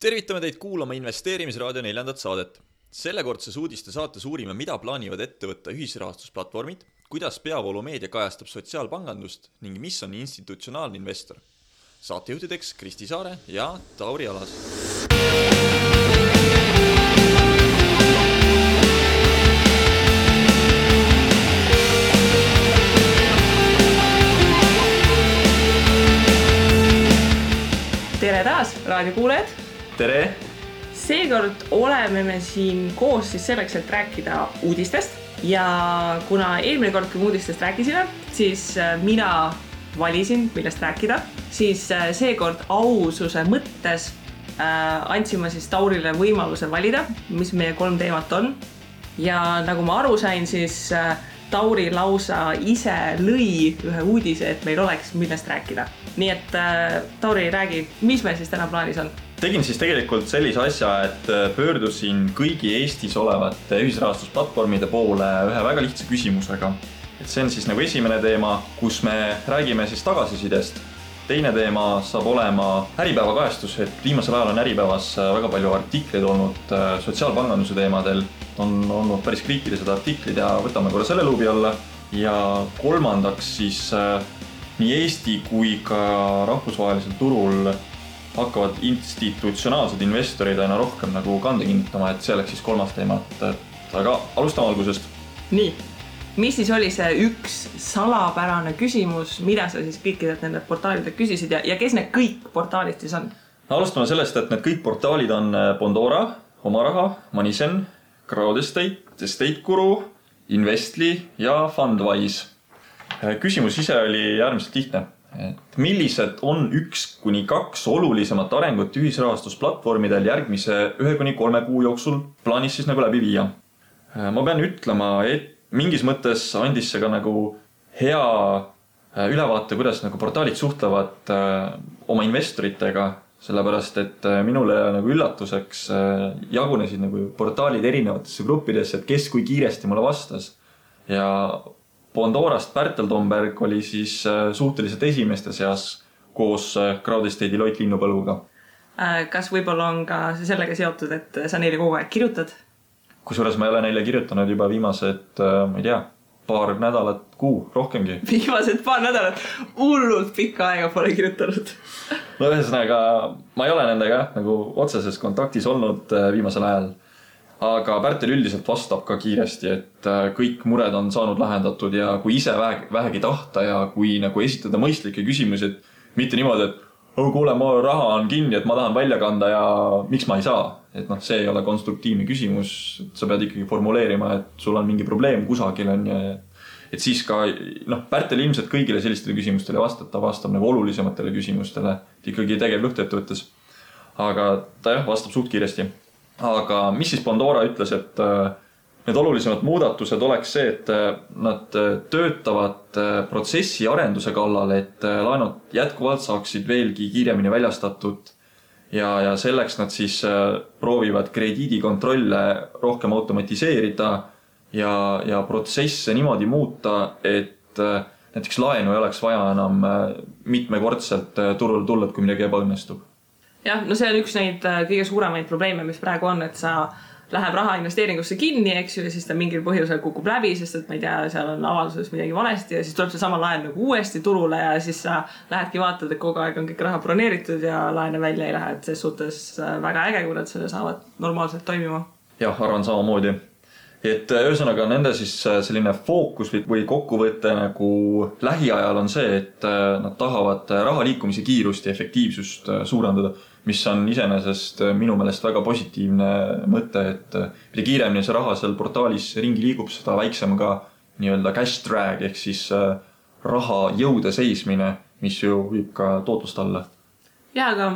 Tervitame teid kuulama Investeerimisraadio 4. saadet. Sellekordses uudiste saates uurime, mida plaanivad ette võtta ühisrahastusplatvormid, kuidas peavoolumeedia kajastab sotsiaalpangandust ning mis on institutsionaalne investor. Saatejuhtideks Kristi Saare ja Tauri Alas. Tere taas, raadiokuulajad! Tere! Seekord oleme me siin koos siis selleks, et rääkida uudistest. Ja kuna eelmine kord, kui uudistest rääkisime, siis mina valisin, millest rääkida. Siis seekord aususe mõttes andsime siis Taurile võimaluse valida, mis meie 3 teemat on. Ja nagu ma aru sain, siis Tauri lausa ise lõi ühe uudise, et meil oleks millest rääkida. Nii et Tauri, räägi, mis meil siis täna plaanis on? Tegin siis tegelikult sellise asja, et pöördusin kõigi Eestis olevate ühisrahastusplatvormide poole ühe väga lihtsa küsimusega. Et see on siis nagu esimene teema, kus me räägime siis tagasisidest. Teine teema saab olema Äripäeva kajastus, et viimasel ajal on Äripäevas väga palju artikleid olnud sotsiaalpanganduse teemadel. On olnud päris kriitilised artiklid ja võtame korra selle luubi alla. Ja kolmandaks siis nii Eesti kui ka rahvusvahelisel turul hakkavad institutsionaalsed investorid aina rohkem nagu kande kinnitama, et see oleks siis 3. teema. Aga alustame algusest. Nii, mis siis oli see üks salapärane küsimus, mida sa siis kõikidelt nende portaalidelt küsisid ja kes need kõik portaalid siis on? Alustame sellest, et need kõik portaalid on Bondora, Omaraha, Manisen, Crowdestate, EstateGuru, Investly ja Fundwise. Küsimus ise oli äärmiselt lihtne. Et millised on 1-2 olulisemat arengut ühisrahastusplatvormidel järgmise 1-3 kuu jooksul plaanis siis nagu läbi viia? Ma pean ütlema, et mingis mõttes andis see ka nagu hea ülevaate, kuidas nagu portaalid suhtlevad oma investoritega, sellepärast et minule nagu üllatuseks jagunesid nagu portaalid erinevatesse gruppidesse, et kes kui kiiresti mulle vastas. Ja Bondorast Pärtel Tomberg oli siis suhteliselt esimeste seas koos Crowdestate'i Loit Linnupõlguga. Kas võib-olla on ka sellega seotud, et sa neile kogu aeg kirjutad? Kusjuures ma ei ole neile kirjutanud juba viimased, ma ei tea, paar nädalat, kuu, rohkemgi. Viimased paar nädalat, hullult pikka aega pole kirjutanud. No ühesõnaga, ma ei ole nendega nagu otseses kontaktis olnud viimasel ajal. Aga Pärtel üldiselt vastab ka kiiresti, et kõik mured on saanud lahendatud ja kui ise vähegi tahta ja kui nagu esitada mõistlikke küsimusi, et mitte niimoodi, et kuule, mu raha on kinni, et ma tahan välja kanda ja miks ma ei saa. Et see ei ole konstruktiivne küsimus, sa pead ikkagi formuleerima, et sul on mingi probleem kusagil on ja et siis ka Pärtel ilmselt kõigile sellistele küsimustele vastab nagu olulisematele küsimustele, et ikkagi tegev lõhteettevõttes. Aga ta vastab suht kiiresti. Aga mis siis Bondora ütles, et need olulisemad muudatused oleks see, et nad töötavad protsessi arenduse kallal, et laenud jätkuvalt saaksid veelgi kiiremini väljastatud ja selleks nad siis proovivad krediidikontrolle rohkem automatiseerida ja protsesse niimoodi muuta, et näiteks laenu ei oleks vaja enam mitmekordselt turule tulla, kui midagi ebaõnnestub. Jah, no see on üks neid kõige suuremaid probleeme, mis praegu on, et sa läheb raha investeeringusse kinni, eks ju, ja siis ta mingil põhjusel kukub läbi, sest et ma ei tea, seal on avalduses midagi valesti ja siis tuleb see sama laen nagu uuesti turule ja siis sa lähedki vaatad, et kogu aeg on kõik raha broneeritud ja laene välja ei lähe, et see suhtes väga äge, kui nad selle saavad normaalselt toimima. Jah, arvan samamoodi. Et ühesõnaga nende siis selline fookus või kokkuvõte nagu lähiajal on see, et nad tahavad raha liikumise kiirust ja efektiivsust suurendada, mis on iseenesest minu meelest väga positiivne mõte, et mida kiiremini see raha seal portaalis ringi liigub, seda väiksem ka nii-öelda cash drag ehk siis raha jõude seismine, mis ju viib ka tootlust alla. Ja, aga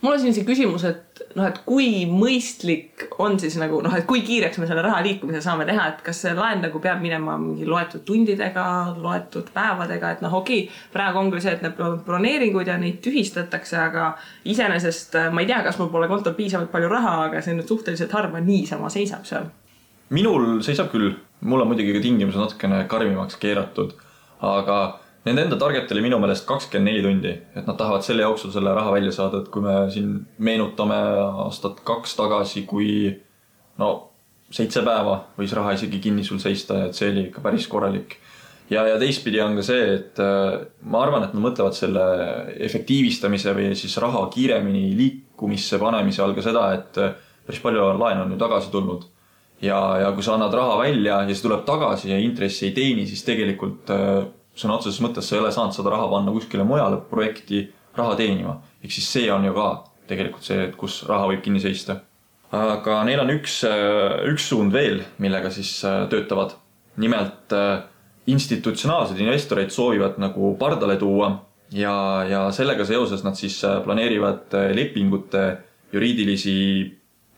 mul on siin küsimus, et kui mõistlik on siis nagu, et kui kiireks me selle raha liikumise saame teha, et kas see laen nagu peab minema mingi loetud tundidega, loetud päevadega, et okei, praegu on küll see, et need broneeringud ja neid tühistatakse, aga iseenesest ma ei tea, kas mul pole kontol piisavalt palju raha, aga see nüüd suhteliselt harva niisama seisab seal. Minul seisab küll, mul on muidugi ka tingimused natukene karmimaks keeratud, aga nende enda target oli minu meelest 24 tundi, et nad tahavad selle jooksul selle raha välja saada, et kui me siin meenutame aastat 2 tagasi, kui 7 päeva võis raha isegi kinni sul seista, et see oli ikka päris korralik. Ja teistpidi on ka see, et ma arvan, et nad mõtlevad selle efektiivistamise või siis raha kiiremini liikumisse panemise all ka seda, et päris palju laen on ju tagasi tulnud. Ja kui sa annad raha välja ja see tuleb tagasi ja intressi ei teeni, siis tegelikult sõna otseses mõttes sa ei ole saanud seda raha panna kuskile mujale projekti raha teenima. Ehk siis see on ju ka tegelikult see, kus raha võib kinni seista. Aga neil on üks suund veel, millega siis töötavad. Nimelt institutsionaalsed investoreid soovivad nagu pardale tuua ja sellega seoses nad siis planeerivad lepingute juriidilisi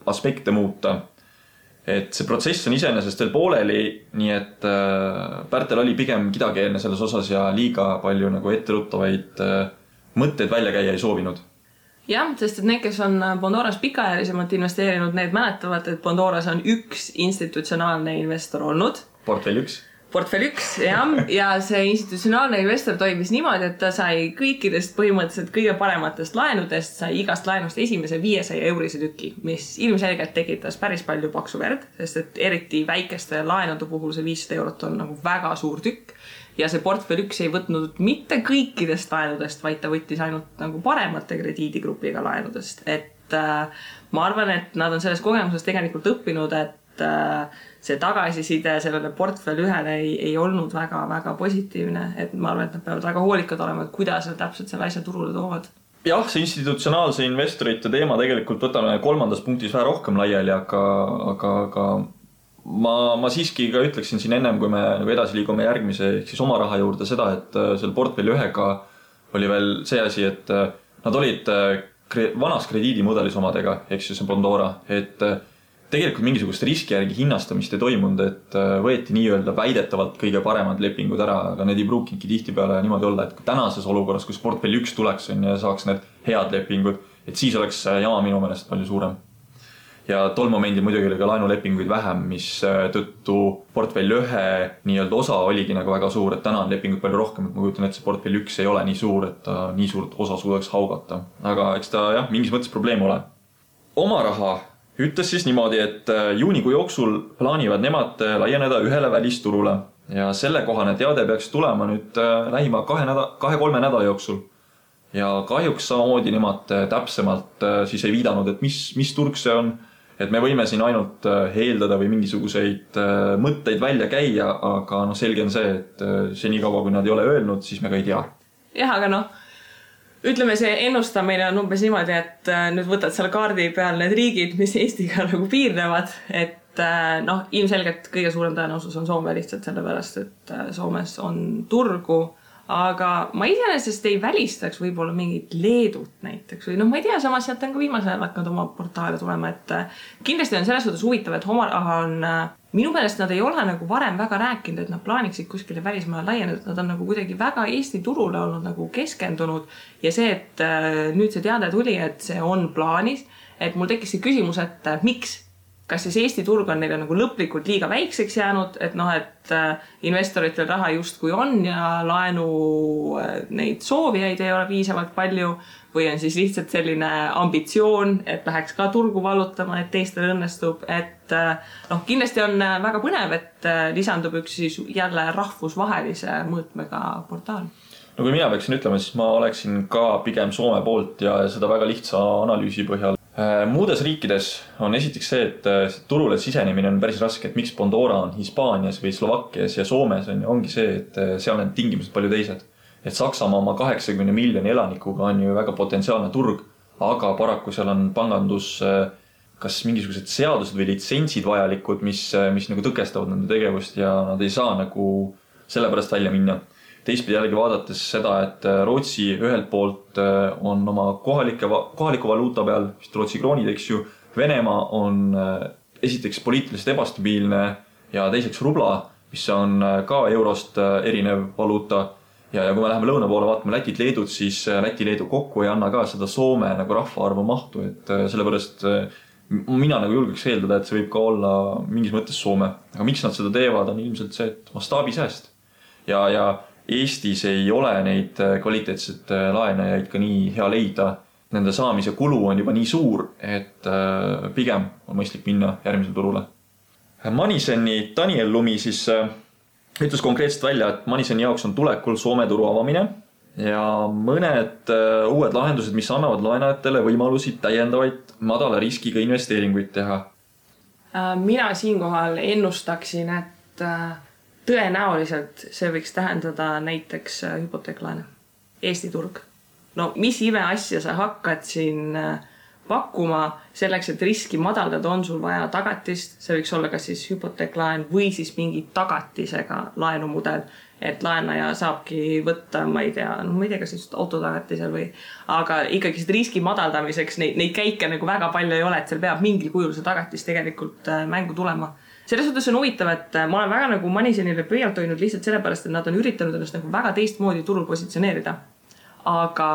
aspekte muuta. Et see protsess on iseenesest veel pooleli, nii et Pärtel oli pigem kidakeelne selles osas ja liiga palju nagu etteruttavaid mõtteid välja käia ei soovinud. Jah, sest et need, kes on Bondoras pikaajalisemalt investeerinud, need mäletavad, et Bondoras on üks institutsionaalne investor olnud. Portfell 1. Portfell 1, jah. Ja see institutsionaalne investor toimis niimoodi, et ta sai kõikidest põhimõtteliselt kõige parematest laenudest, sai igast laenust esimese 500 eurose tüki, mis ilmselgelt tekitas päris palju paksu verd, sest et eriti väikeste laenude puhul see 500 eurot on nagu väga suur tükk. Ja see Portfell 1 ei võtnud mitte kõikidest laenudest, vaid ta võttis ainult nagu paremate krediidigrupiga laenudest. Et ma arvan, et nad on selles kogemuses tegelikult õppinud, et see tagasiside sellele Portfell 1-le ei olnud väga positiivne. Et ma arvan, et nad peavad väga hoolikad olema, et kuidas nad täpselt selle asja turule toovad. Jah, see institutsionaalse investorite teema tegelikult võtame 3. punktis vähe rohkem laiali, aga ma siiski ka ütleksin siin ennem, kui me nagu edasi liigume järgmise ehk siis oma raha juurde seda, et seal Portfell 1-ga oli veel see asi, et nad olid vanas krediidimudelis omadega, ehk siis Bondora, et tegelikult mingisugust riski järgi hinnastamist ei toimunud, et võeti nii-öelda väidetavalt kõige paremad lepingud ära, aga need ei pruukinudki tihtipeale niimoodi olla, et tänases olukorras, kus Portfell 1 tuleks ja saaks need head lepingud, et siis oleks jama minu meelest palju suurem. Ja tol momendil muidugi oli ka laenulepinguid vähem, mis tõttu Portfell 1 nii-öelda osa oligi nagu väga suur, et täna on lepinguid palju rohkem, et ma kujutan, et see Portfell 1 ei ole nii suur, et ta nii suurt osa suudaks haugata. Aga eks ta mingis mõttes probleem ole. Oma raha ütles siis niimoodi, et juunikuu jooksul plaanivad nemad laieneda ühele välisturule ja sellekohane teade peaks tulema nüüd lähima 2-3 nädala jooksul. Ja kahjuks samamoodi nemad täpsemalt siis ei viidanud, et mis turg see on. Et me võime siin ainult heeldada või mingisuguseid mõtteid välja käia, aga selge on see, et see nii kaua, kui nad ei ole öelnud, siis me ka ei tea. Jah, aga ütleme, see ennustamine on umbes niimoodi, et nüüd võtad seal kaardi peal need riigid, mis Eestiga nagu piirnevad, et ilmselgelt kõige suurem tõenäosus on Soome lihtsalt sellepärast, et Soomes on turgu. Aga ma iseenesest ei välistaks võib-olla mingit Leedut näiteks või ma ei tea, samas sealt on ka viimasel ajal hakanud oma portaale tulema, et kindlasti on selles suhtes huvitav, et oma raha on minu meelest nad ei ole nagu varem väga rääkinud, et nad plaaniksid kuskile välismaale laieneda, nad on nagu kuidagi väga Eesti turule olnud nagu keskendunud ja see, et nüüd see teade tuli, et see on plaanis, et mul tekkis see küsimus, et miks? Kas siis Eesti turg on neile nagu lõplikult liiga väikseks jäänud, et investoritel raha justkui on ja laenu neid soovijaid ei ole piisavalt palju või on siis lihtsalt selline ambitsioon, et läheks ka turgu vallutama, et teistel õnnestub, et kindlasti on väga põnev, et lisandub üks siis jälle rahvusvahelise mõõtmega portaal. Kui mina peaksin ütlema, siis ma oleksin ka pigem Soome poolt ja seda väga lihtsa analüüsi põhjal. Muudes riikides on esiteks see, et turule sisenemine on päris raske, et miks Bondora on Hispaanias või Slovakkias ja Soomes ongi see, et seal on tingimused palju teised. Et Saksamaa oma 80 miljoni elanikuga on ju väga potentsiaalne turg, aga paraku seal on pangandus kas mingisugused seadused või litsentsid vajalikud, mis nagu tõkestavad nende tegevust ja nad ei saa nagu sellepärast välja minna. Teistpidi jällegi vaadates seda, et Rootsi ühelt poolt on oma kohaliku valuuta peal, vist Rootsi kroonid, eks ju, Venemaa on esiteks poliitiliselt ebastabiilne ja teiseks rubla, mis on ka eurost erinev valuuta. Ja kui me läheme lõuna poole vaatame Lätit, Leedut, siis Läti-Leedu kokku ei anna ka seda Soome nagu rahvaarvu mahtu, et sellepärast mina nagu julgeks eeldada, et see võib ka olla mingis mõttes Soome. Aga miks nad seda teevad, on ilmselt see, et mastaabisääst. Ja Eestis ei ole neid kvaliteetseid laenajaid ka nii hea leida. Nende saamise kulu on juba nii suur, et pigem on mõistlik minna järgmisele turule. Maniseni Daniel Lumi siis ütles konkreetselt välja, et Maniseni jaoks on tulekul Soome turu avamine ja mõned uued lahendused, mis annavad laenajatele võimalusi täiendavaid madala riskiga investeeringuid teha. Mina siinkohal ennustaksin, et tõenäoliselt see võiks tähendada näiteks hüpoteeklaene. Eesti turg. No mis ime asja sa hakkad siin pakkuma selleks, et riski madaldada, on sul vaja tagatist, see võiks olla kas siis hüpoteeklaen või siis mingi tagatisega laenumudel, et laenaja saabki võtta, ma ei tea, kas just autotagatisel või, aga ikkagi seda riski madaldamiseks neid käike nagu väga palju ei ole, et seal peab mingil kujul see tagatis tegelikult mängu tulema. Selles suhtes on huvitav, et ma olen väga nagu Manisenile pöialt hoidnud lihtsalt sellepärast, et nad on üritanud ennast nagu väga teistmoodi turul positsioneerida. Aga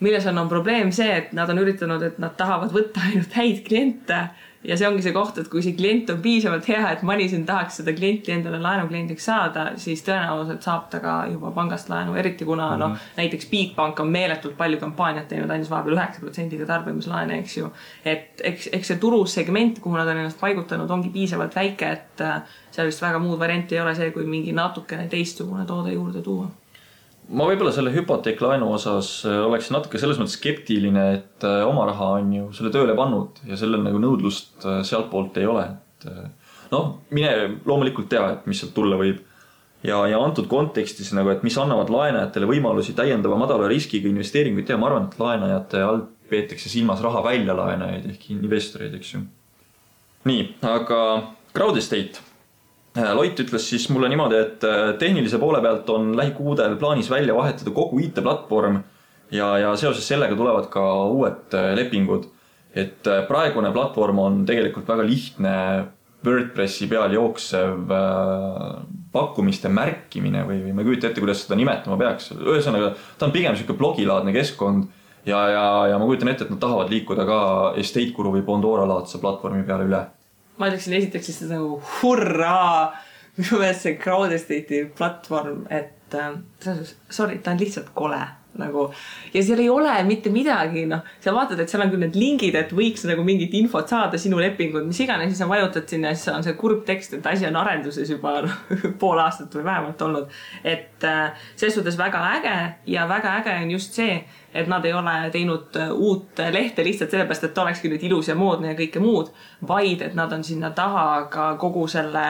milles on probleem see, et nad on üritanud, et nad tahavad võtta ainult häid kliente ja see ongi see koht, et kui see klient on piisavalt hea, et Manisen tahaks seda klienti endale laenukliendiks saada, siis tõenäoliselt saab ta ka juba pangast laenu, eriti kuna näiteks Bigbank on meeletult palju kampaaniat teinud, ainult vahepeal 9% tarbimislaene, eks ju. Et eks see turusegment, kuhu nad on ennast paigutanud, ongi piisavalt väike, et seal vist väga muud varianti ei ole see, kui mingi natukene teistsugune toode juurde tuua. Ma võib-olla selle hüpoteeklaenu osas oleks natuke selles mõttes skeptiline, et oma raha on ju selle tööle pannud ja sellel nagu nõudlust sealt poolt ei ole. Mine loomulikult tea, et mis sealt tulla võib. Ja antud kontekstis, nagu, et mis annavad laenajatele võimalusi täiendava madala riskiga investeeringuid teha, ma arvan, et laenajate all peetakse silmas raha väljalaenajaid ehk investoreid, eks ju. Nii, aga Crowd Estate. Loit ütles siis mulle niimoodi, et tehnilise poole pealt on lähikuudel plaanis välja vahetada kogu IT-platvorm ja seoses sellega tulevad ka uued lepingud. Et praegune platvorm on tegelikult väga lihtne WordPressi peal jooksev pakkumiste märkimine või ma kujutan ette, kuidas seda nimetama peaks. Ühesõnaga, ta on pigem selline blogilaadne keskkond ja ma kujutan ette, et nad tahavad liikuda ka Estate Guru või Bondora laadse platvormi peale üle. Ma ütleksin esiteks siis nagu hurraa, minu meelest see Crowd Estate'i platvorm, et sorry, ta on lihtsalt kole. Nagu, ja seal ei ole mitte midagi, sa vaatad, et seal on küll need lingid, et võiks nagu mingit infot saada sinu lepingud, mis iganes, siis sa vajutad sinna ja siis on see kurb tekst, et asi on arenduses juba pool aastat või vähemalt olnud. Et selles suhtes väga äge ja väga äge on just see, et nad ei ole teinud uut lehte lihtsalt sellepärast, et ta olekski nüüd ilus ja moodne ja kõike muud, vaid et nad on sinna taha ka kogu selle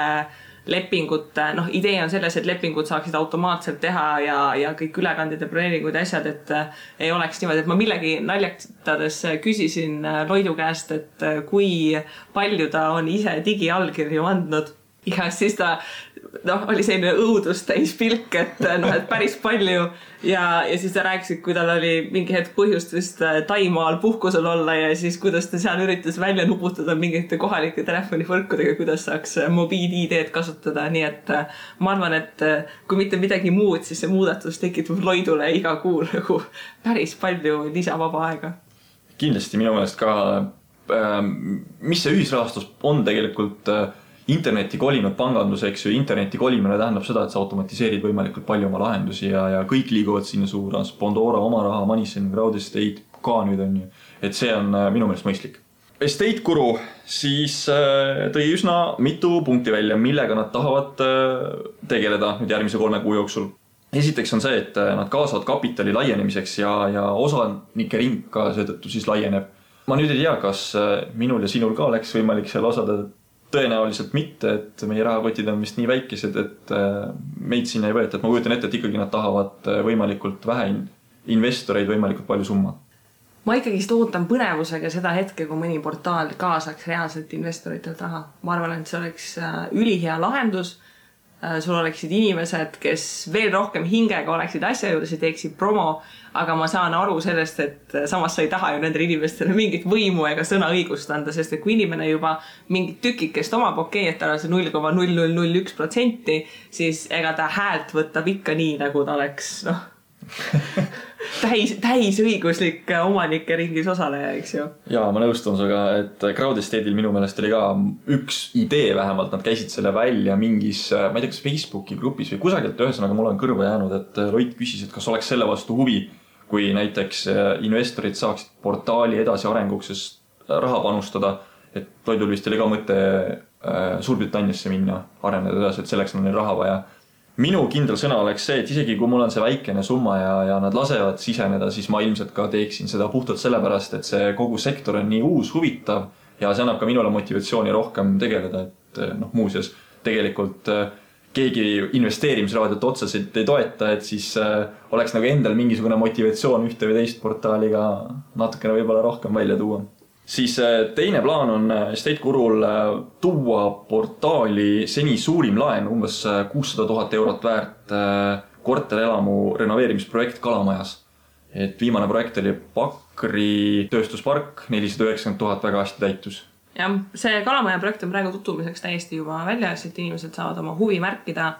lepingute, idee on selles, et lepingud saaksid automaatselt teha ja kõik ülekanded ja broneeringud ja asjad, et ei oleks niimoodi, et ma millegi naljatades küsisin Loidu käest, et kui palju ta on ise digiallkirju andnud ja siis ta oli selline õudust täis pilk, et päris palju ja siis ta rääkis, et kui tal oli mingi hetk põhjust vist Taimaal puhkusel olla ja siis kuidas ta seal üritas välja nuputada mingite kohalike telefonivõrkudega, kuidas saaks mobiil-ID-d kasutada, nii et ma arvan, et kui mitte midagi muud, siis see muudatus tekitab Loidule iga kuu nagu päris palju lisavaba aega. Kindlasti minu meelest ka, mis see ühisrahastus on tegelikult interneti kolinud panganduseks ja interneti kolimine tähendab seda, et sa automatiseerid võimalikult palju oma lahendusi ja kõik liiguvad sinna suunas. Bondora, oma raha, Manisen, Crowd Estate ka nüüd on ju. Et see on minu meelest mõistlik. Estate Guru siis tõi üsna mitu punkti välja, millega nad tahavad tegeleda nüüd järgmise 3 kuu jooksul. Esiteks on see, et nad kaasavad kapitali laienemiseks ja osanike ring ka seetõttu siis laieneb. Ma nüüd ei tea, kas minul ja sinul ka oleks võimalik seal osada. Tõenäoliselt mitte, et meie rahakotid on vist nii väikesed, et meid sinna ei võeta. Et ma kujutan ette, et ikkagi nad tahavad võimalikult vähe investoreid võimalikult palju summa. Ma ikkagi ootan põnevusega seda hetke, kui mõni portaal kaasaks reaalselt investoritelt raha. Ma arvan, et see oleks ülihea lahendus. Sul oleksid inimesed, kes veel rohkem hingega oleksid asja juures ja teeksid promo, aga ma saan aru sellest, et samas sa ei taha ju nendele inimestele mingit võimu ega sõnaõigust anda, sest et kui inimene juba mingit tükikest omab, et tal on see 0,0001%, siis ega ta häält võtab ikka nii, nagu ta oleks, täisõiguslik omanike ringis osaleja, eks ju. Jaa, ma nõustun suga, et Crowd Estate'il minu meelest oli ka üks idee vähemalt, nad käisid selle välja mingis, ma ei tea, kas Facebooki grupis või kusagilt, ühesõnaga mul on kõrva jäänud, et Loit küsis, et kas oleks selle vastu huvi, kui näiteks investorid saaksid portaali edasi arenguks raha panustada, et Loidul vist oli ka mõte Suurbritanniasse minna, areneda edasi, et selleks on neil raha vaja. Minu kindel sõna oleks see, et isegi kui mul on see väikene summa ja nad lasevad siseneda, siis ma ilmselt ka teeksin seda puhtalt sellepärast, et see kogu sektor on nii uus, huvitav ja see annab ka minule motivatsiooni rohkem tegeleda, et muuseas tegelikult keegi investeerimisraadiot otseselt ei toeta, et siis oleks nagu endal mingisugune motivatsioon ühte või teist portaaliga natukene võib-olla rohkem välja tuua. Siis teine plaan on Estate Gurul tuua portaali seni suurim laen, umbes 600 000 eurot väärt korterelamu renoveerimisprojekt Kalamajas. Et viimane projekt oli Pakri tööstuspark, 490 000 väga hästi täitus. Jah, see Kalamaja projekt on praegu tutvumiseks täiesti juba väljas, et inimesed saavad oma huvi märkida.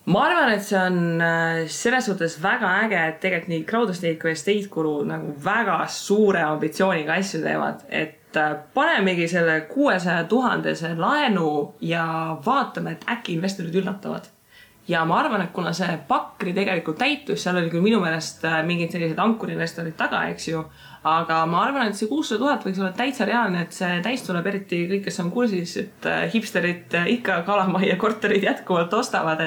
Ma arvan, et see on selles suhtes väga äge, et tegelikult nii Crowd Estate kui Estate Guru nagu väga suure ambitsiooniga asju teevad, et panemegi selle 600 000 laenu ja vaatame, et äkki investorid üllatavad. Ja ma arvan, et kuna see Pakri tegelikult täitus, seal oli küll minu meelest mingid sellised ankurinvestorid taga, eks ju, aga ma arvan, et see 600 000 võiks olla täitsa reaalne, et see täis tuleb eriti kõik, kes on kursis, et hipsterid ikka Kalamaja korterid jätkuvalt ostavad,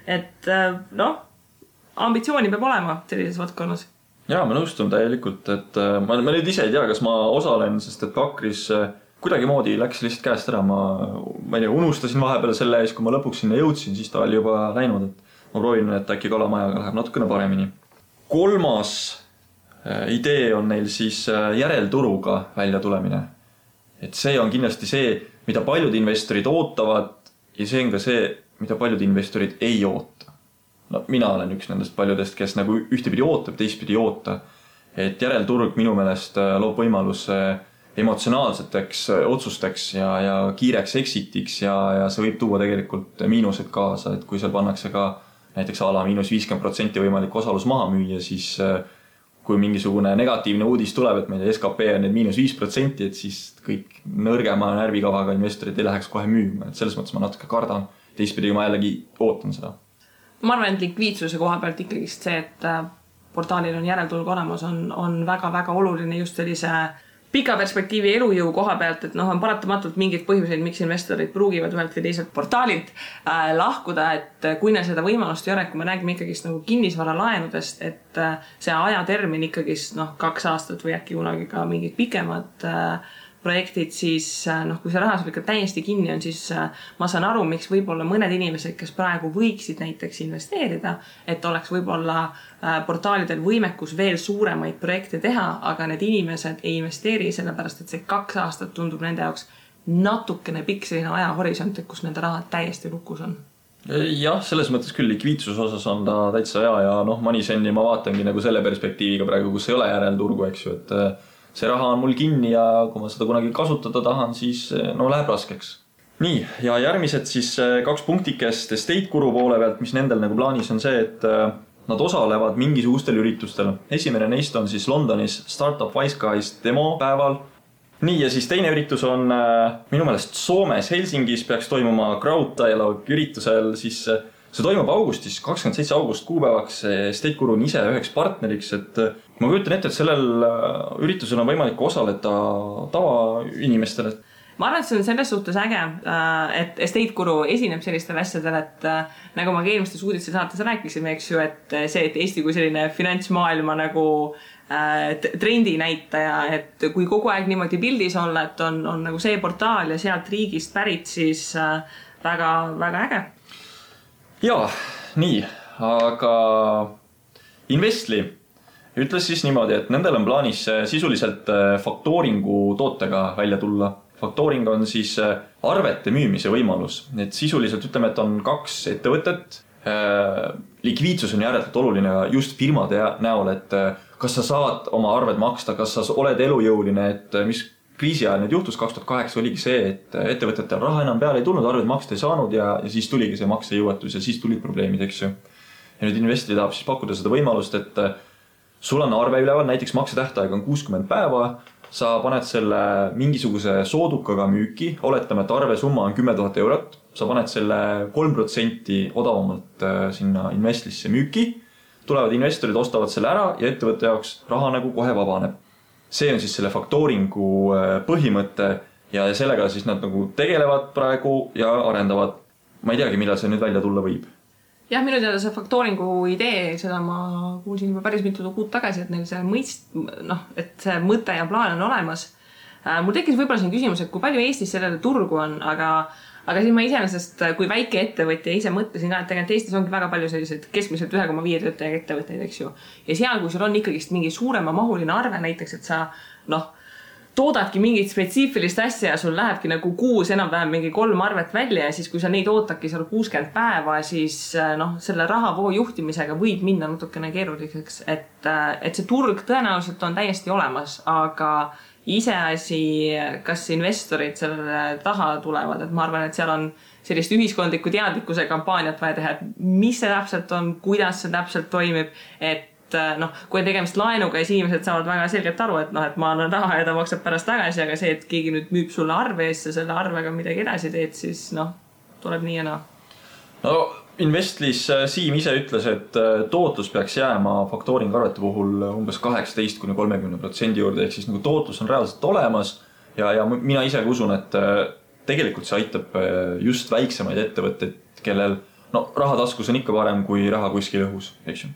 et ambitsiooni peab olema sellises valdkonnas. Jaa, ma nõustun täielikult, et ma nüüd ise ei tea, kas ma osalen, sest et Pakris kuidagi moodi läks lihtsalt käest ära. Ma ei tea, unustasin vahepeal selle ees, kui ma lõpuks sinna jõudsin, siis ta oli juba läinud, et ma proovin, et äkki Kalamajaga läheb natukene paremini. Kolmas idee on neil siis järelturuga välja tulemine. Et see on kindlasti see, mida paljud investorid ootavad ja see on ka see, mida paljud investorid ei oota. No, mina olen üks nendest paljudest, kes nagu ühtepidi ootab, teistpidi ei oota. Et järelturg minu meelest loob võimalus emotsionaalseteks otsusteks ja kiireks exitiks ja see võib tuua tegelikult miinused kaasa, et kui seal pannakse ka näiteks ala -50% võimalik osalus maha müüa, siis kui mingisugune negatiivne uudis tuleb, et meie SKP on need -5%, et siis kõik nõrgema närvikavaga investorid ei läheks kohe müüma, et selles mõttes ma natuke kardan, teistpidi ma jällegi ootan seda. Ma arvan, et likviidsuse koha pealt ikkagi see, et portaalil on järelturg olemas, on väga-väga oluline just sellise pika perspektiivi elujõu koha pealt, et on paratamatult mingid põhjuseid, miks investorid pruugivad ühelt või teiselt portaalilt lahkuda, et kui neil seda võimalust ei ole, kui me räägime ikkagist nagu kinnisvara laenudest, et see ajatermin ikkagist 2 aastat või äkki kunagi ka mingid pikemad projektid, siis kui see raha sul ikka täiesti kinni on, siis ma saan aru, miks võib-olla mõned inimesed, kes praegu võiksid näiteks investeerida, et oleks võib-olla portaalidel võimekus veel suuremaid projekte teha, aga need inimesed ei investeeri sellepärast, et see 2 aastat tundub nende jaoks natukene pikk selline ajahorisont, kus nende raha täiesti lukus on. Jah, selles mõttes küll likviidsuse osas on ta täitsa hea ja Moneysendi ma vaatangi nagu selle perspektiiviga praegu, kus ei ole järelturgu, eks ju, et see raha on mul kinni ja kui ma seda kunagi kasutada tahan, siis läheb raskeks. Nii, ja järgmised siis 2 punktikest Estate Guru poole pealt, mis nendel nagu plaanis on see, et nad osalevad mingisugustel üritustel. Esimene neist on siis Londonis Startup Wise Guys demo päeval. Nii, ja siis teine üritus on minu meelest Soomes Helsingis peaks toimuma Crowd Dialogue üritusel, siis see toimub augustis, 27. august kuupäevaks. Estate Guru on ise üheks partneriks, et ma kujutan ette, et sellel üritusel on võimalik osaleda tavainimestele. Ma arvan, et see on selles suhtes äge, et Estate Guru esineb sellistel asjadel, et nagu ma ka eelmistes uudiste saates rääkisime, eks ju, et see, et Eesti kui selline finantsmaailma nagu trendi näitaja, et kui kogu aeg niimoodi pildis olla, et on nagu see portaal ja sealt riigist pärit, siis väga, väga äge. Jaa, nii, aga Investli ütles siis niimoodi, et nendel on plaanis sisuliselt faktooringu tootega välja tulla. Faktooring on siis arvete müümise võimalus. Et sisuliselt ütleme, et on 2 ettevõtet. Likviidsus on järelikult oluline just firmade näol, et kas sa saad oma arved maksta, kas sa oled elujõuline, et mis kriisi ajal nüüd juhtus 2008 oligi see, et ettevõtetel raha enam peale ei tulnud, arved maksta ei saanud ja siis tuligi see maksejõuetus ja siis tulid probleemid, eks ju. ja nüüd investori tahab siis pakkuda seda võimalust, et sul on arve üleval, näiteks maksetähtaeg on 60 päeva, sa paned selle mingisuguse soodukaga müüki, oletame, et arve summa on 10 000 eurot, sa paned selle 3% odavamalt sinna investlisse müüki, tulevad investorid, ostavad selle ära ja ettevõtte jaoks raha nagu kohe vabaneb. See on siis selle faktooringu põhimõte ja sellega siis nad nagu tegelevad praegu ja arendavad. Ma ei teagi, millal see nüüd välja tulla võib. Jah, minu teada see faktooringu idee, seda ma kuulsin juba päris mitu kuud tagasi, et neil see et see mõte ja plaan on olemas. Mul tekkis võib-olla siin küsimus, et kui palju Eestis sellele turgu on, aga siis ma iseenesest, kui väike ettevõtja ise mõtlesin ka, et tegelikult Eestis ongi väga palju selliseid keskmiselt 1,5 töötajaga ettevõtteid, eks ju. Ja seal, kui sul on ikkagist mingi suurema mahuline arve, näiteks, et sa toodadki mingit spetsiifilist asja ja sul lähebki nagu kuus enam-vähem mingi 3 arvet välja ja siis, kui sa neid ootadki seal 60 päeva, siis selle rahavoo juhtimisega võib minna natukene keeruliseks, et see turg tõenäoliselt on täiesti olemas, aga iseasi, kas investorid selle taha tulevad, et ma arvan, et seal on sellist ühiskondliku teadlikkuse kampaaniat vaja teha, et mis see täpselt on, kuidas see täpselt toimib, et kui on tegemist laenuga, siis inimesed saavad väga selgelt aru, et ma annan raha ja ta maksab pärast tagasi, aga see, et keegi nüüd müüb sulle arve eest ja selle arvega midagi edasi teed, siis tuleb nii ja naa. No Investlis Siim ise ütles, et tootlus peaks jääma faktooring arvete puhul umbes 18–30% juurde, ehk siis nagu tootlus on reaalselt olemas ja mina ise usun, et tegelikult see aitab just väiksemaid ettevõtteid, kellel rahataskus on ikka parem kui raha kuskil õhus, eks ju.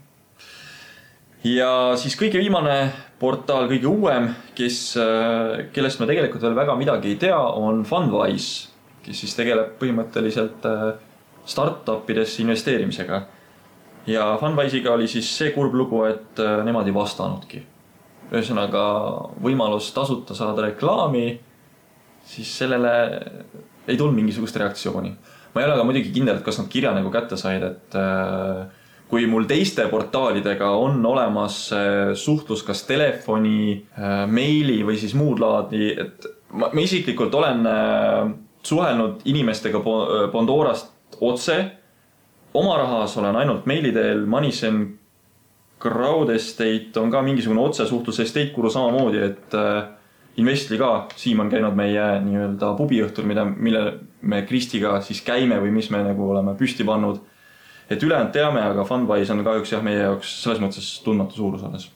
Ja siis kõige viimane portaal, kõige uuem, kellest me tegelikult veel väga midagi ei tea, on Fundwise, kes siis tegeleb põhimõtteliselt startupidesse investeerimisega. Ja Fundwise'iga oli siis see kurb lugu, et nemad ei vastanudki. Ühesõnaga võimalus tasuta saada reklaami, siis sellele ei tulnud mingisugust reaktsiooni. Ma ei ole aga muidugi kindel, et kas nad kirja nagu kätte said, et kui mul teiste portaalidega on olemas suhtlus kas telefoni, meili või siis muud laadi, et ma isiklikult olen suhelnud inimestega Pandorast otse. Oma rahas olen ainult meili teel, Manisen Crowd Estate on ka mingisugune otsesuhtlus, Estate Guru samamoodi, et Investli ka, Siim on käinud meie nii-öelda pubiõhtul, mille me Kristiga siis käime või mis me nagu oleme püsti pannud. Et ülejäänud teame, aga Fundwise on kahjuks meie jaoks selles mõttes tundmatu suurus alles.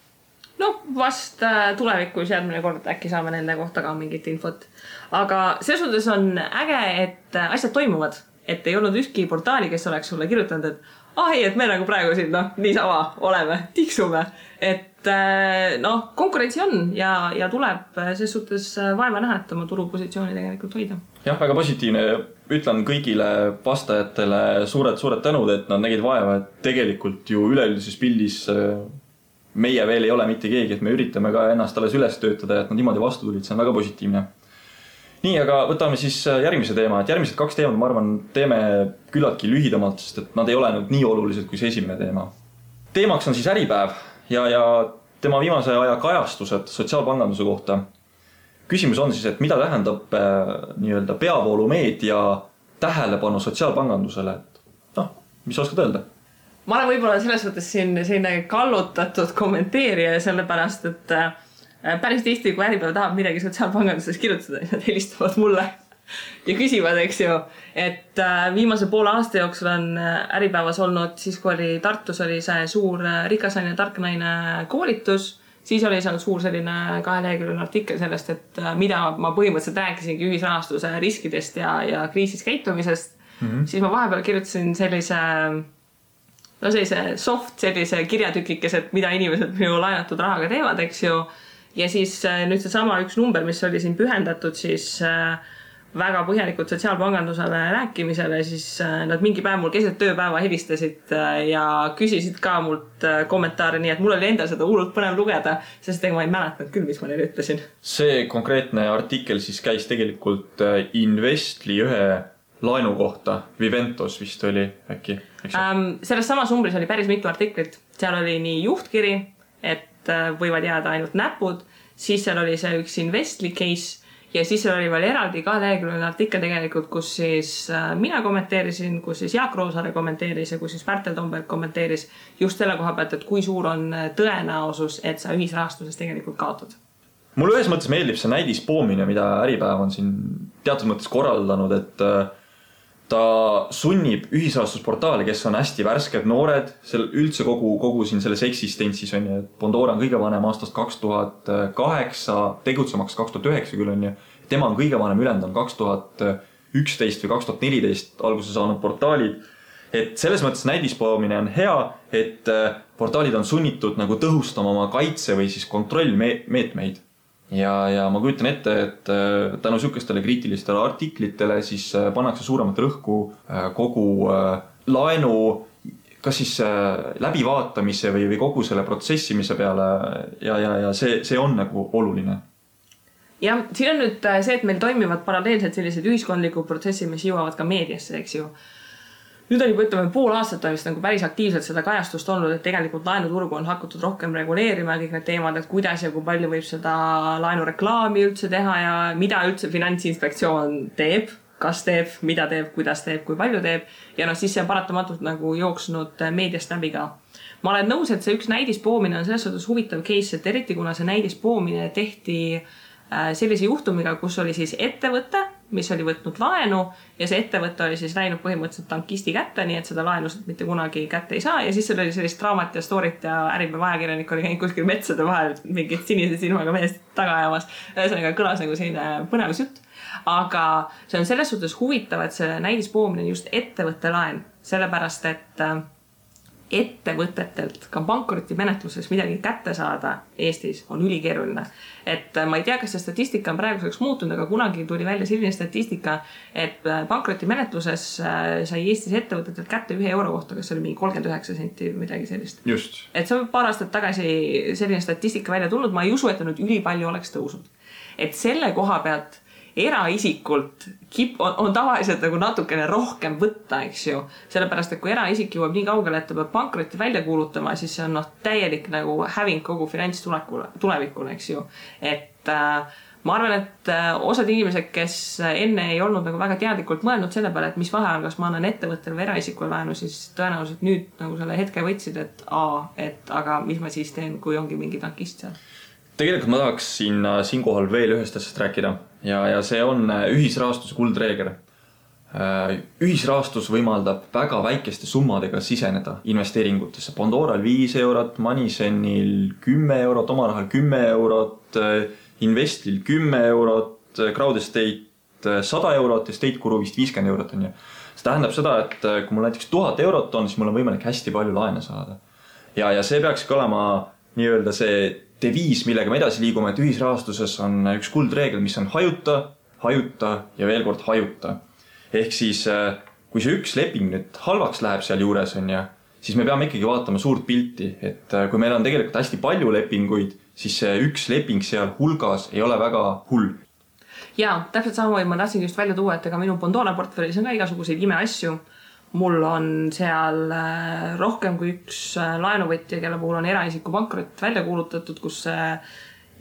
Vast tulevikus järgmine kord äkki saame nende kohta ka mingit infot. Aga selles suhtes on äge, et asjad toimuvad. Et ei olnud ükski portaali, kes oleks sulle kirjutanud, et et me nagu praegu siin niisama oleme, tiksume. Et konkurentsi on ja tuleb ses suhtes vaeva näha, et oma turupositsiooni tegelikult hoida. Jah, väga positiivne. Ütlen kõigile vastajatele suured tänud, et nad nägid vaeva, et tegelikult ju üleüldises pildis meie veel ei ole mitte keegi, et me üritame ka ennast alles üles töötada, et nad niimoodi vastu tulid, see on väga positiivne. Nii, aga võtame siis järgmise teema, et järgmised 2 teemad, ma arvan, teeme küllaltki lühidamalt, sest et nad ei ole nii olulised kui see esimene teema. Teemaks on siis Äripäev ja tema viimase aja kajastused sotsiaalpanganduse kohta. Küsimus on siis, et mida tähendab nii-öelda peavoolumeedia tähelepanu sotsiaalpangandusele? Mis oskad öelda? Ma olen võib-olla selles võttes siin selline kallutatud kommenteerija, sellepärast, et päris tihti, kui Äripäev tahab midagi sotsiaalpanganduses kirjutada, nad helistavad mulle ja küsivad, eks ju, et viimase poole aasta jooksul on Äripäevas olnud, siis kui oli Tartus oli see suur rikas naine, tark naine koolitus, siis oli seal suur selline 2-leheküljeline artikkel sellest, et mida ma põhimõtteliselt rääkisingi ühisrahastuse riskidest ja kriisis käitumisest, siis ma vahepeal kirjutasin sellise sellise kirjatükikes, et mida inimesed minu laenatud rahaga teevad, eks ju. Ja siis nüüd see sama üks number, mis oli siin pühendatud siis väga põhjalikult sotsiaalpangandusele rääkimisele, siis nad mingi päev mul keset tööpäeva helistasid ja küsisid ka mult kommentaare, nii et mul oli endal seda hullult põnev lugeda, sest ma ei mäletanud küll, mis ma neile ütlesin. See konkreetne artikkel siis käis tegelikult Investli ühe laenu kohta, Viventos vist oli äkki. Selles samas numbris oli päris mitu artiklit. Seal oli nii juhtkiri, et võivad jääda ainult näpud, siis seal oli see üks Investli case ja siis seal oli veel eraldi 2 leheküljeline artikkel tegelikult, kus siis mina kommenteerisin, kus siis Jaak Roosaare kommenteeris ja kus siis Pärtel Tomberg kommenteeris just selle koha pealt, et kui suur on tõenäosus, et sa ühisrahastuses tegelikult kaotad. Mulle ühes mõttes meeldib see näidispoomine, mida Äripäev on siin teatud mõttes korraldanud, et ta sunnib ühisrahastusportaali, kes on hästi värsked noored, üldse kogu siin selles eksistentsis on ju, et Bondora on kõige vanem aastast 2008, tegutsemaks 2009 küll on ju, tema on kõige vanem, ülejäänud on 2011 või 2014 alguse saanud portaalid, et selles mõttes näidispoomine on hea, et portaalid on sunnitud nagu tõhustama oma kaitse või siis kontrollmeetmeid. Ja ma kujutan ette, et tänu sükestele kriitilistele artiklitele siis pannakse suuremat rõhku kogu laenu kas siis läbivaatamise või kogu selle protsessimise peale ja see on nagu oluline. Ja siin on nüüd see, et meil toimivad paralleelselt sellised ühiskondlikud protsessid, mis jõuavad ka meediasse, eks ju. Nüüd on juba ütleme pool aastat on vist nagu päris aktiivselt seda kajastust olnud, et tegelikult laenuturgu on hakatud rohkem reguleerima kõik need teemad, et kuidas ja kui palju võib seda laenureklaami üldse teha ja mida üldse Finantsinspektsioon teeb, kas teeb, mida teeb, kuidas teeb, kui palju teeb. Ja siis see on paratamatult nagu jooksnud meediast läbi ka. Ma olen nõus, et see üks näidispoomine on selles suhtes huvitav case, et eriti kuna see näidispoomine tehti sellise juhtumiga, kus oli siis ettevõte, mis oli võtnud laenu ja see ettevõte oli siis läinud põhimõtteliselt tankisti kätte, nii et seda laenu mitte kunagi kätte ei saa ja siis seal oli sellist draamat ja storit ja Äripäeva ajakirjanik oli käinud kuskil metsade vahel mingit sinise silmaga meest taga ajamas. Ühesõnaga kõlas nagu selline põnevusjutt. Aga see on selles suhtes huvitav, et see näidispoomine on just ettevõtte laen, sellepärast et ettevõtetelt ka pankrotimenetluses midagi kätte saada Eestis on ülikeeruline. Et ma ei tea, kas see statistika on praeguseks muutunud, aga kunagi tuli välja selline statistika, et pankrotimenetluses sai Eestis ettevõtetelt kätte 1 euro kohta, kas oli mingi 39 senti või midagi sellist. Just. Et see on paar aastat tagasi selline statistika välja tulnud, ma ei usu, et nüüd ülipalju oleks tõusnud. Et selle koha pealt eraisikult on tavaliselt nagu natukene rohkem võtta, eks ju. Sellepärast, et kui eraisik jõuab nii kaugele, et ta peab pankrotti välja kuulutama, siis see on täielik nagu häving kogu finantstulevikule, eks ju. Et ma arvan, et osad inimesed, kes enne ei olnud nagu väga teadlikult mõelnud selle peale, et mis vahe on, kas ma annan ettevõttel või eraisikul laenu, siis tõenäoliselt nüüd nagu selle hetke võtsid, et aga mis ma siis teen, kui ongi mingi tankist seal. Tegelikult ma tahaks siinkohal veel ühest asjast rääkida ja see on ühisrahastuse kuldreegel. Ühisrahastus võimaldab väga väikeste summadega siseneda investeeringutesse. Bondoral 5 eurot, Moneyzenil 10 eurot, Omarahal 10 eurot, Investil 10 eurot, Crowdestate 100 eurot ja State Guru vist 50 eurot on ju. See tähendab seda, et kui mul näiteks 1000 eurot on, siis mul on võimalik hästi palju laene saada. Ja see peaks ka olema nii-öelda see deviis, millega me edasi liigume, et ühisrahastuses on üks kuldreegel, mis on hajuta ja veel kord hajuta. Ehk siis, kui see üks leping nüüd halvaks läheb seal juures on ja, siis me peame ikkagi vaatama suurt pilti, et kui meil on tegelikult hästi palju lepinguid, siis see üks leping seal hulgas ei ole väga hull. Jaa, täpselt samamoodi ma tahtsin just välja tuua, et ega minu Bondora portfellis on ka igasuguseid imeasju. Mul on seal rohkem kui üks laenuvõtja, kelle puhul on eraisiku pankrot välja kuulutatud, kus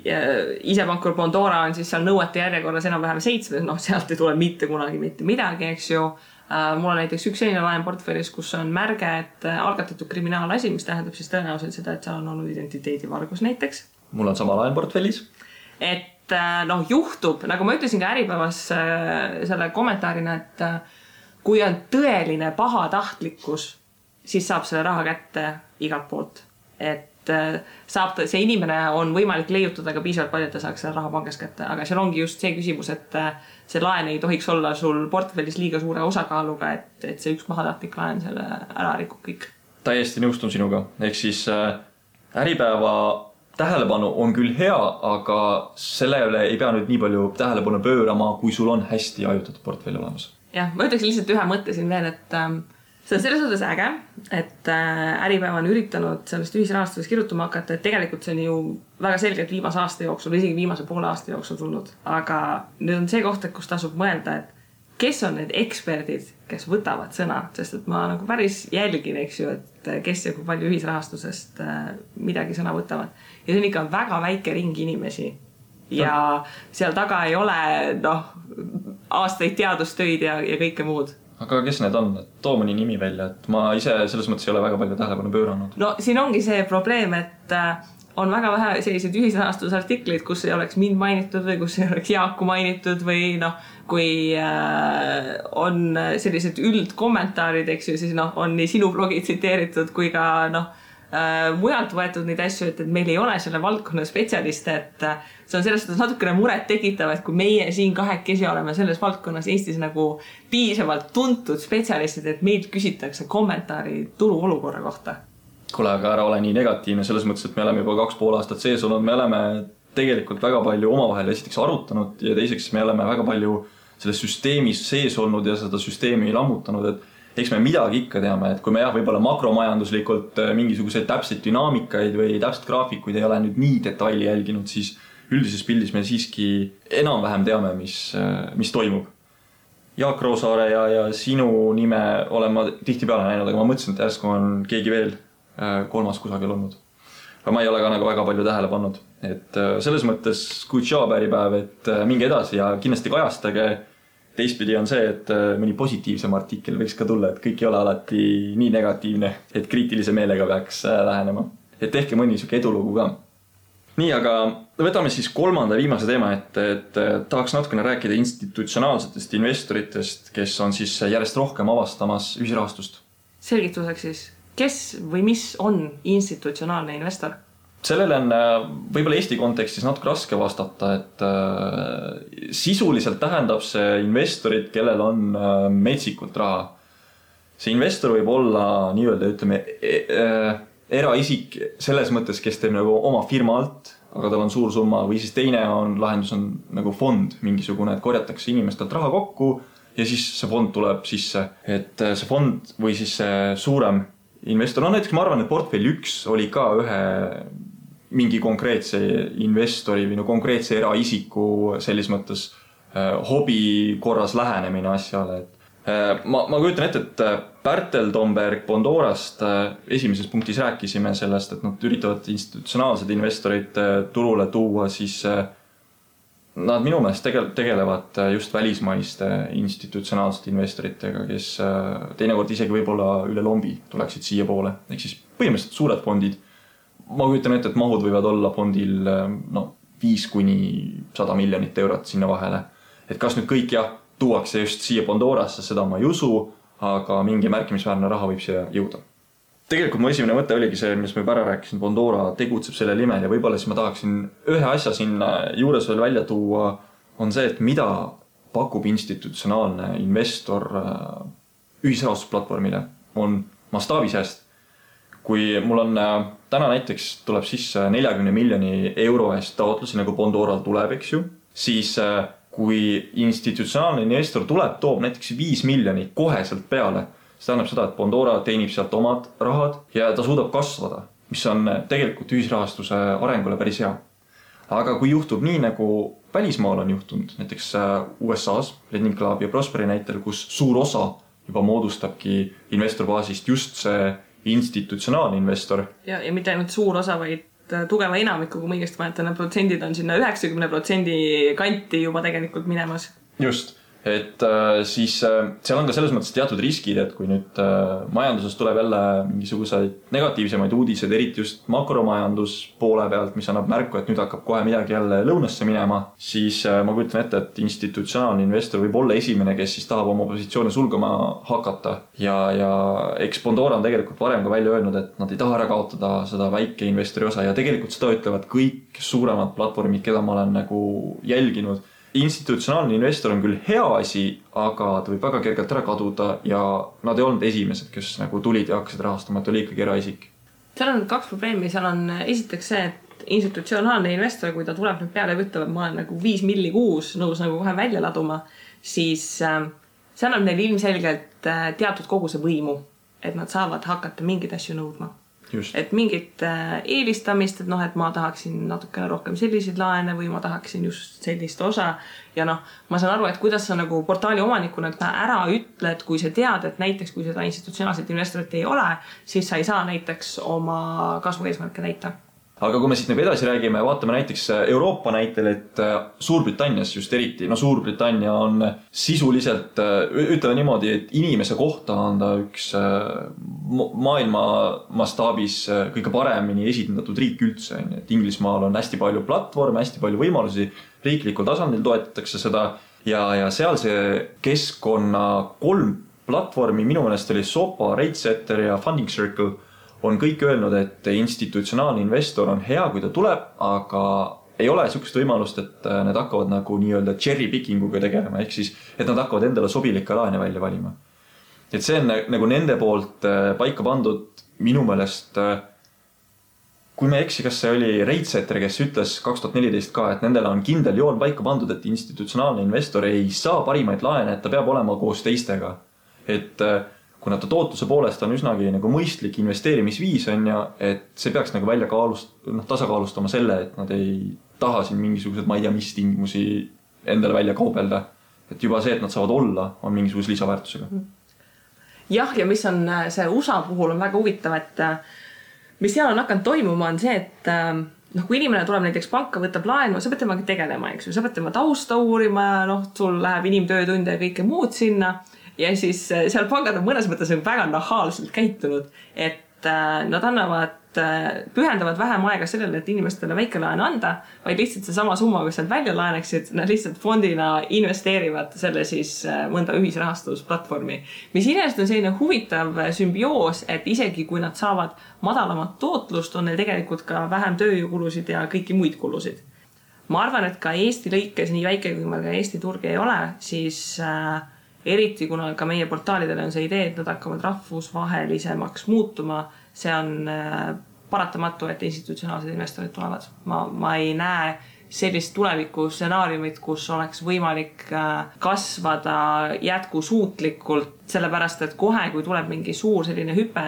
isepankur Bondora on siis seal nõuete järjekorras enam-vähem 7, sealt ei tule mitte kunagi mitte midagi, eks ju. Mul on näiteks üks selline laen portfellis, kus on märge, et algatatud kriminaalasi, mis tähendab siis tõenäoliselt seda, et seal on olnud identiteedivargus näiteks. Mul on sama laen portfellis. Et juhtub, nagu ma ütlesin ka Äripäevas selle kommentaarina, et kui on tõeline pahatahtlikkus, siis saab selle raha kätte igalt poolt. Et see inimene on võimalik leiutada ka piisavalt palju, et ta saaks selle raha pangast kätte. Aga seal ongi just see küsimus, et see laen ei tohiks olla sul portfellis liiga suure osakaaluga, et see üks pahatahtlik laen selle ära rikub kõik. Täiesti nõustun sinuga. Ehk siis Äripäeva tähelepanu on küll hea, aga sellele ei pea nüüd nii palju tähelepanu pöörama, kui sul on hästi ajutatud portfelli olemas. Jah, ma ütleks lihtsalt ühe mõtte siin veel, et see on selles suhtes äge, et Äripäev on üritanud sellest ühisrahastuses kirjutama hakata, et tegelikult see on ju väga selgelt viimase aasta jooksul, isegi viimase poole aasta jooksul tulnud. Aga nüüd on see koht, kus tasub mõelda, et kes on need eksperdid, kes võtavad sõna, sest et ma nagu päris jälgin, eks ju, et kes ja kui palju ühisrahastusest midagi sõna võtavad. Ja see on ikka väga väike ring inimesi, ja seal taga ei ole aastaid teadustöid ja kõike muud. Aga kes need on? Too mõni nimi välja, et ma ise selles mõttes ei ole väga palju tähelepanu pööranud. No siin ongi see probleem, et on väga vähe selliseid ühisrahastusartikleid, kus ei oleks mind mainitud või kus ei oleks Jaaku mainitud või kui on sellised üldkommentaarid, eks ju, siis on nii sinu blogi tsiteeritud kui ka mujalt võetud neid asju, et meil ei ole selle valdkonna spetsialiste, et see on selles suhtes natukene muret tekitav, et kui meie siin kahekesi oleme selles valdkonnas Eestis nagu piisavalt tuntud spetsialistid, et meilt küsitakse kommentaari turu olukorra kohta. Kuule, aga ära ole nii negatiivne selles mõttes, et me oleme juba 2,5 aastat sees olnud, me oleme tegelikult väga palju omavahel esiteks arutanud ja teiseks me oleme väga palju selles süsteemis sees olnud ja seda süsteemi lammutanud, et eks me midagi ikka teame, et kui me võib-olla makromajanduslikult mingisuguseid täpseid dünaamikaid või täpselt graafikuid ei ole nüüd nii detaili jälginud, siis üldises pildis me siiski enam-vähem teame, mis toimub. Jaak Roosaare ja sinu nime olen ma tihtipeale näinud, aga ma mõtlesin, et järsku on keegi veel kolmas kusagil olnud. Aga ma ei ole ka nagu väga palju tähele pannud. Et selles mõttes päripäev, et minge edasi ja kindlasti kajastage. Teistpidi on see, et mõni positiivsem artikkel võiks ka tulla, et kõik ei ole alati nii negatiivne, et kriitilise meelega peaks lähenema. Et tehke mõni siuke edulugu ka. Nii, aga võtame siis kolmanda viimase teema, et tahaks natukene rääkida institutsionaalsetest investoritest, kes on siis järjest rohkem avastamas ühisrahastust. Selgituseks siis, kes või mis on institutsionaalne investor? Sellele on võib-olla Eesti kontekstis natuke raske vastata, et sisuliselt tähendab see investorid, kellel on metsikult raha. See investor võib olla nii-öelda, ütleme, eraisik selles mõttes, kes teeb nagu oma firma alt, aga tal on suur summa, või siis teine lahendus on nagu fond mingisugune, et korjatakse inimestelt raha kokku ja siis see fond tuleb sisse. Et see fond või siis see suurem investor, näiteks ma arvan, et portfell 1 oli ka ühe mingi konkreetse investori või konkreetse eraisiku selles mõttes hobi korras lähenemine asjale. Ma kujutan ette, et Pärtel Tomberg Bondorast esimeses punktis rääkisime sellest, et nad üritavad institutsionaalsed investorid turule tuua, siis nad minu meelest tegelevad just välismaiste institutsionaalsete investoritega, kes teinekord isegi võib-olla üle lombi tuleksid siia poole. Ehk siis põhimõtteliselt suured fondid. Ma kujutan ette, et mahud võivad olla fondil 5–100 miljonit eurot sinna vahele. Et kas nüüd kõik tuuakse just siia Bondorasse, seda ma ei usu, aga mingi märkimisväärne raha võib siia jõuda. Tegelikult mu esimene mõte oligi see, mis ma juba ära rääkisin, Bondora tegutseb selle nimel ja võib-olla siis ma tahaksin ühe asja sinna juures veel välja tuua, on see, et mida pakub institutsionaalne investor ühisrahastusplatvormile, on mastaabisääst. Kui mul on täna näiteks tuleb sisse 40 miljoni euro eest taotlusi, nagu Bondoral tuleb, eks ju, siis kui institutsionaalne investor tuleb, toob näiteks 5 miljonit koheselt peale, see tähendab seda, et Bondora teenib sealt omad rahad ja ta suudab kasvada, mis on tegelikult ühisrahastuse arengule päris hea. Aga kui juhtub nii, nagu välismaal on juhtunud, näiteks USA-s, Lending Club ja Prosperi näitel, kus suur osa juba moodustabki investorbaasist just see institutsionaalne investor. Ja mitte ainult suur osa, vaid tugeva enamiku, kui ma õigesti mäletan, protsendid on sinna 90% kanti juba tegelikult minemas. Just, et siis seal on ka selles mõttes teatud riskid, et kui nüüd majanduses tuleb jälle mingisuguseid negatiivsemaid uudiseid, eriti just makromajandus poole pealt, mis annab märku, et nüüd hakkab kohe midagi jälle lõunasse minema, siis ma kujutan ette, et institutsionaalne investor võib olla esimene, kes siis tahab oma positsioone sulgama hakata. Ja eks Bondora on tegelikult varem ka välja öelnud, et nad ei taha ära kaotada seda väike investori osa ja tegelikult seda ütlevad kõik suuremad platvormid, keda ma olen nagu jälginud. Institutsionaalne investor on küll hea asi, aga ta võib väga kergelt ära kaduda ja nad ei olnud esimesed, kes nagu tulid ja hakkasid rahastama, et oli ikkagi eraisik. Seal on 2 probleemi. Seal on esiteks see, et institutsionaalne investor, kui ta tuleb nüüd peale ja ütleb, et ma olen nagu 5 milli kuus nõus nagu kohe välja laduma, siis see annab neil ilmselgelt teatud koguse võimu, et nad saavad hakata mingeid asju nõudma. Just. Et mingit eelistamist, et et ma tahaksin natukene rohkem selliseid laene või ma tahaksin just sellist osa ja ma saan aru, et kuidas sa nagu portaali omanikuna ära ütled, kui sa tead, et näiteks kui seda institutsionaalset investorit ei ole, siis sa ei saa näiteks oma kasvu eesmärke täita. aga kui me siit nagu edasi räägime, vaatame näiteks Euroopa näitel, et Suurbritannias just eriti, Suurbritannia on sisuliselt, ütleme niimoodi, et inimese kohta on ta üks maailma mastaabis kõige paremini esindatud riik üldse. Et Inglismaal on hästi palju platvorme, hästi palju võimalusi, riiklikul tasandil toetatakse seda ja seal see keskkonna 3 platvormi, minu meelest oli Sopa, RateSetter ja Funding Circle, on kõik öelnud, et institutsionaalne investor on hea, kui ta tuleb, aga ei ole sellist võimalust, et need hakkavad nagu nii-öelda cherry pickinguga tegelema, ehk siis, et nad hakkavad endale sobilikke laene välja valima. Et see on nagu nende poolt paika pandud minu meelest, kui me eksi, kas see oli RateSetter, kes ütles 2014 ka, et nendele on kindel joon paika pandud, et institutsionaalne investor ei saa parimaid laene, et ta peab olema koos teistega. Et kuna ta tootluse poolest on üsnagi nagu mõistlik investeerimisviis on ja, et see peaks nagu välja tasakaalustama selle, et nad ei taha siin mingisugused, ma ei tea, mis tingimusi endale välja kaubelda. Et juba see, et nad saavad olla, on mingisuguse lisaväärtusega. Jah, ja mis on see USA puhul on väga huvitav, et mis seal on hakanud toimuma on see, et kui inimene tuleb näiteks panka, võtab laenu, sa pead temaga tegelema, eks ju, sa pead tema tausta uurima, sul läheb inimtöötunde ja kõike muud sinna. Ja siis seal pangad on mõnes mõttes väga nahaalselt käitunud, et nad pühendavad vähem aega sellele, et inimestele väike laen anda, vaid lihtsalt see sama summa, kui sealt välja laeneksid, nad lihtsalt fondina investeerivad selle siis mõnda ühisrahastusplatvormi. Mis inimest on selline huvitav sümbioos, et isegi kui nad saavad madalamat tootlust, on neil tegelikult ka vähem tööjõukulusid ja kõiki muid kulusid. Ma arvan, et ka Eesti lõikes, nii väike kui meil ka Eesti turg ei ole, siis eriti kuna ka meie portaalidele on see idee, et nad hakkavad rahvusvahelisemaks muutuma, see on paratamatu, et institutsionaalsed investorid tulevad. Ma ei näe sellist tuleviku stsenaariumit, kus oleks võimalik kasvada jätkusuutlikult, sellepärast, et kohe, kui tuleb mingi suur selline hüpe,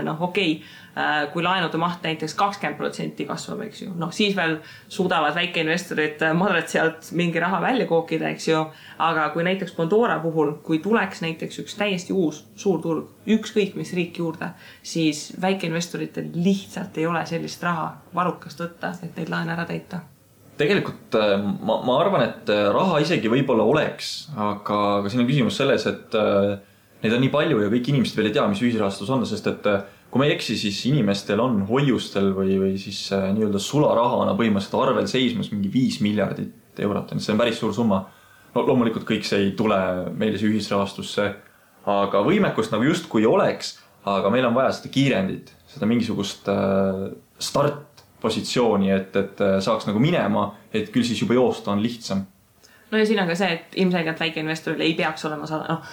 kui laenude maht näiteks 20% kasvab, eks ju, siis veel suudavad väikeinvestorid madrat sealt mingi raha välja kookida, eks ju, aga kui näiteks Pandora puhul, kui tuleks näiteks üks täiesti uus suur turg, ükskõik mis riik juurde, siis väikeinvestoritel lihtsalt ei ole sellist raha varukast võtta, et neid laene ära täita. Tegelikult ma arvan, et raha isegi võib-olla oleks, aga siin on küsimus selles, et neid on nii palju ja kõik inimesed veel ei tea, mis ühisrahastus on, sest et kui ma ei eksi, siis inimestel on hoiustel või siis nii-öelda sularahana põhimõtteliselt arvel seismas mingi 5 miljardit eurot. See on päris suur summa. Loomulikult kõik see ei tule meile see ühisrahastusse, aga võimekust nagu just kui oleks, aga meil on vaja seda kiirendit, seda mingisugust startpositsiooni, et saaks nagu minema, et küll siis juba joosta on lihtsam. No ja siin on ka see, et ilmselgelt väikeinvestoril ei peaks olema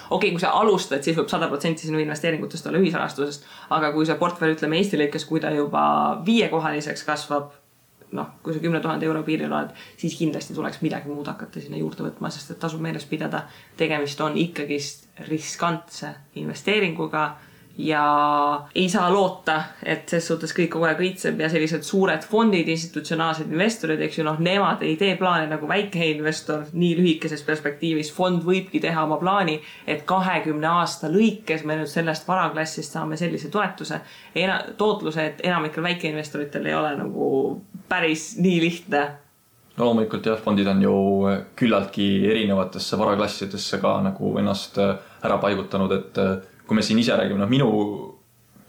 kui sa alustad, siis võib 100% sinu investeeringutest olla ühisrahastusest, aga kui see portfell, ütleme Eesti lõikes, kui ta juba 5-kohaliseks kasvab, kui sa 10 000 euro piiril oled, siis kindlasti tuleks midagi muud hakata sinna juurde võtma, sest et tasub meeles pidada, tegemist on ikkagist riskantse investeeringuga ja ei saa loota, et ses suhtes kõik kogu aeg õitseb ja sellised suured fondid, institutsionaalsed investorid, eks ju, nemad ei tee plaane nagu väike investor nii lühikeses perspektiivis. Fond võibki teha oma plaani, et 20 aasta lõikes me nüüd sellest varaklassist saame sellise tootluse, et enamikel väikeinvestoritel ei ole nagu päris nii lihtne. No loomulikult jah, fondid on ju küllaltki erinevatesse varaklassidesse ka nagu ennast ära paigutanud, et kui me siin ise räägime, minu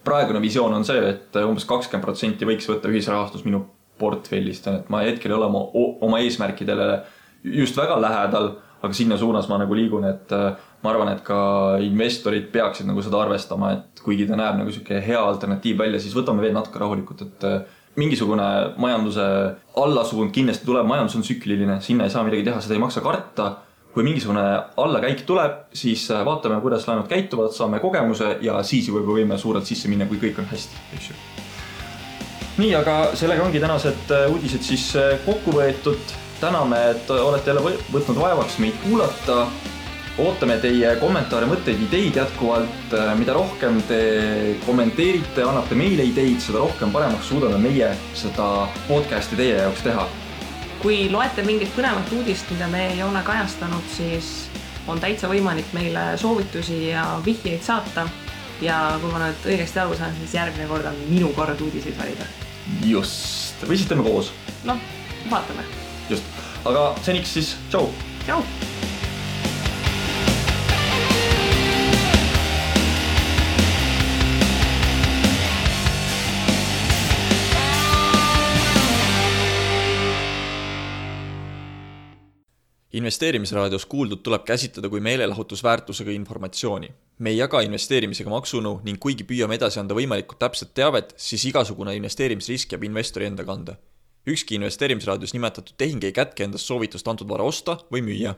praegune visioon on see, et umbes 20% võiks võtta ühisrahastus minu portfellist, et ma hetkel ei ole oma eesmärkidele just väga lähedal, aga sinna suunas ma nagu liigun, et ma arvan, et ka investorid peaksid nagu seda arvestama, et kuigi ta näeb nagu selline hea alternatiiv välja, siis võtame veel natuke rahulikult, et mingisugune majanduse allasuund kindlasti tuleb, majandus on tsükliline, sinna ei saa midagi teha, seda ei maksa karta. Kui mingisugune allakäik tuleb, siis vaatame, kuidas laenud käituvad, saame kogemuse ja siis juba võime suurelt sisse minna, kui kõik on hästi. Nii, aga sellega ongi tänased uudised siis kokku võetud. Täname, et olete jälle võtnud vaevaks meid kuulata. Ootame teie kommentaare, mõtteid, ideid jätkuvalt. Mida rohkem te kommenteerite, annate meile ideid, seda rohkem paremaks suudame meie seda podcasti teie jaoks teha. Kui loete mingit põnevat uudist, mida me ei ole kajastanud, siis on täitsa võimalik meile soovitusi ja vihjeid saata. Ja kui ma nüüd õigesti aru saan, siis järgmine kord on minu kord uudiseid valida. Just. või siis teeme koos. Noh, vaatame. Just, aga seniks siis tšau! Tšau! Investeerimisraadios kuuldud tuleb käsitleda kui meelelahutusväärtusega informatsiooni. Me ei jaga investeerimisega maksunõu ning kuigi püüame edasi anda võimalikult täpset teavet, siis igasugune investeerimisrisk jääb investori enda kanda. Ükski investeerimisraadios nimetatud tehing ei kätke endast soovitust antud vara osta või müüa.